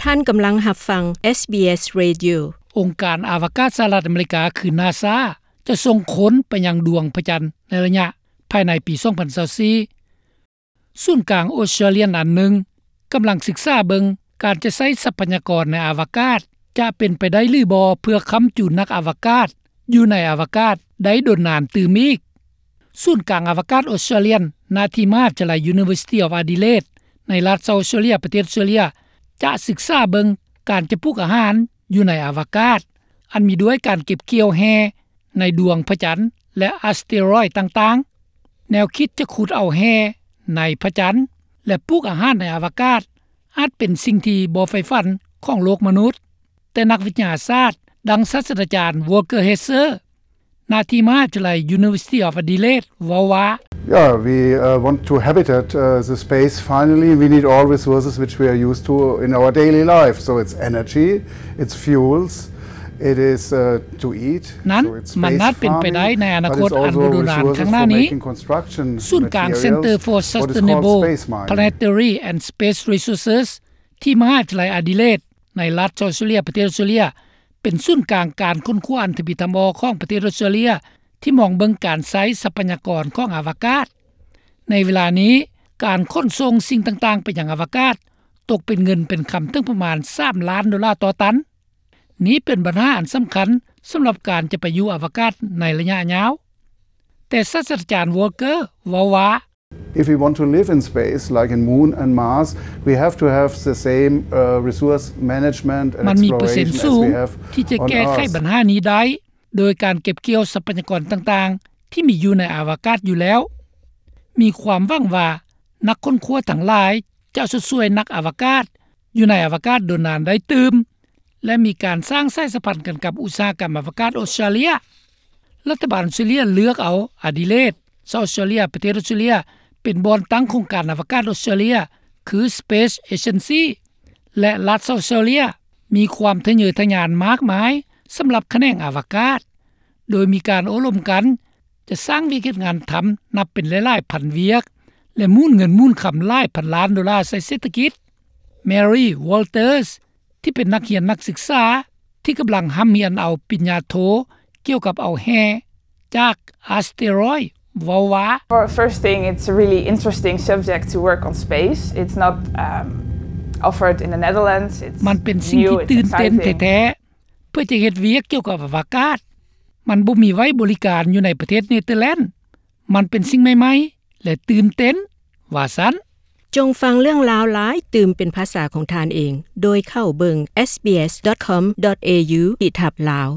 ທ່ານກຳລັງຮັບຟັງ ເອສບີເອສ Radio. ອົງການອາວະກາດສະຫະລັດອາເມລິກາ ຄື NASA ຈະສົ່ງຄົນໄປຍັງດວງພະຈັນໃນໄລຍະພາຍໃນປີສອງພັນຊາວສີ່. ສູນກາງອົດສະຕຣາເລຍອັນໜຶ່ງກຳລັງສຶກສາເບິ່ງການຈະໃຊ້ຊັບພະຍາກອນໃນອາວະກາດ ຈະເປັນໄປໄດ້ຫຼືບໍ່ ເພື່ອຄ້ຳຈູນນັກອາວະກາດຢູ່ໃນອາວະກາດໄດ້ດົນນານຕື່ມອີກ. ສູນກາງອາວະກາດອົດສະຕຣາເລຍ ນາທີ່ມະຫາວິທະຍາໄລ University of Adelaide ໃນລັດ South Australia ປະເທດອົດສະຕຣາເລຍ ຈະສຶກສາເບິ່ງການຈະປູກອາຫານຢູ່ໃນອາວະກາດ ອັນມີດ້ວຍການເກັບກ່ຽວແຮ່ໃນດວງພະຈັນ ແລະ ອາສເຕຣອຍຕ່າງໆ. ແນວຄິດຈະຂຸດເອົາແຮ່ໃນພະຈັນ ແລະ ປູກອາຫານໃນອາວະກາດ ອາດເປັນສິ່ງທີ່ບໍ່ໃຝ່ຝັນຂອງໂລກມະນຸດ, ແຕ່ນັກວິທະຍາສາດ ດັ່ງສາດສະດາຈານ Volker Hesse ນາທີ່ມະຫາວິທະຍາໄລ University of Adelaide ເວົ້າວ່າ Yeah, we, uh, want to habitat, uh, the space finally. We need all resources which we are used to in our daily life. So it's energy, it's fuels, it is, uh, to eat. ນັ້ນ So it's ມັນ space ອາດເປັນໄປໄດ້ farming, ໃນອະນາຄົດ but it's ອັນ also ບໍ່ດົນນານ resources ຂ້າງໜ້າ for ນີ້ making construction ສູນກາງ materials, Center for what is called Sustainable space mining. Planetary and Space Resources ທີ່ມະຫາວິທະຍາໄລ Adelaide ໃນລັດ South Australia ປະເທດອົດສະຕຣາເລຍ ເປັນສູນກາງການຄົ້ນຄວ້າອັນທຳອິດທຳອໍຂອງປະເທດອົດສະຕຣາເລຍ ທີ່ມອງເບິ່ງການໃຊ້ຊັບພະຍາກອນຂອງອາວະກາດ. ໃນເວລານີ້ ການຂົນສົ່ງສິ່ງຕ່າງໆໄປຍັງອາວະກາດ ຕົກເປັນເງິນເປັນຄຳເຖິງປະມານສາມລ້ານໂດລາຕໍ່ຕັນ. ນີ້ເປັນບັນຫາອັນສຳຄັນສຳລັບການຈະໄປຢູ່ອາວະກາດໃນໄລຍະຍາວ. ແຕ່ສາດສະດາຈານ Volker ເວົ້າວ່າ If we want to live in space, like in Moon and Mars, we have to have the same, uh, resource management and ມັນມີເປີເຊັນສູງ exploration as we have ທີ່ຈະແກ້ໄຂບັນຫານີ້ໄດ້ ໂດຍການເກັບກ່ຽວຊັບພະຍາກອນຕ່າງໆທີ່ມີຢູ່ໃນອາວະກາດຢູ່ແລ້ວ. ມີຄວາມຫວັງວ່ານັກຄົ້ນຄວ້າທັງຫຼາຍຈະຊົດຊ່ວຍນັກອາວະກາດຢູ່ໃນອາວະກາດດົນນານໄດ້ຕື່ມ ແລະ ມີການສ້າງສາຍສຳພັນກັນກັບອຸດສາຫະກຳອາວະກາດອົດສະຕຣາເລຍ. ລັດຖະບານອົດສະຕຣາເລຍເລືອກເອົາ Adelaide, South Australia ປະເທດອົດສະຕຣາເລຍ ເປັນບ່ອນຕັ້ງໂຄງການອາວະກາດອົດສະຕຣາເລຍ ຄື Space Agency ແລະ ລັດ South Australia ມີຄວາມທະເຍີທະຍານມາກມາຍສຳລັບຂະແໜງອາວະກາດ ໂດຍມີການໂອ້ລົມກັນ ຈະສ້າງວຽກເຮັດງານທຳນັບເປັນຫຼາຍໆພັນວຽກ ແລະ ໝູນເງິນໝູນຄຳຫຼາຍພັນລ້ານໂດລາໃສ່ເສດຖະກິດ. Mary Walters ທີ່ເປັນນັກຮຽນນັກສຶກສາທີ່ກຳລັງຮ່ຳຮຽນເອົາປະລິນຍາໂທກ່ຽວກັບເອົາແຮ່ຈາກອາສເຕຣອຍ ເວົ້າວ່າ For first thing, it's a really interesting subject to work on space. It's not, um, offered in the Netherlands. It's ມັນເປັນສິ່ງທີ່ new, it's ຕື່ນເຕັ້ນ exciting. ແທ້ໆ ເພື່ອຈະເຮັດວຽກກ່ຽວກັບອະວະກາດ. ມັນບໍ່ມີໄວ້ບໍລິການຢູ່ໃນປະເທດເນເທີແລນ. ມັນເປັນສິ່ງໃໝ່ໆ ແລະ ຕື່ນເຕັ້ນ ວ່າຊັ້ນ. ຈົ່ງຟັງເລື່ອງລາວຫຼາຍຕື່ມເປັນພາສາຂອງທ່ານເອງ ໂດຍເຂົ້າເບິ່ງ SBS.com.au ທີ່ທັບ Lao.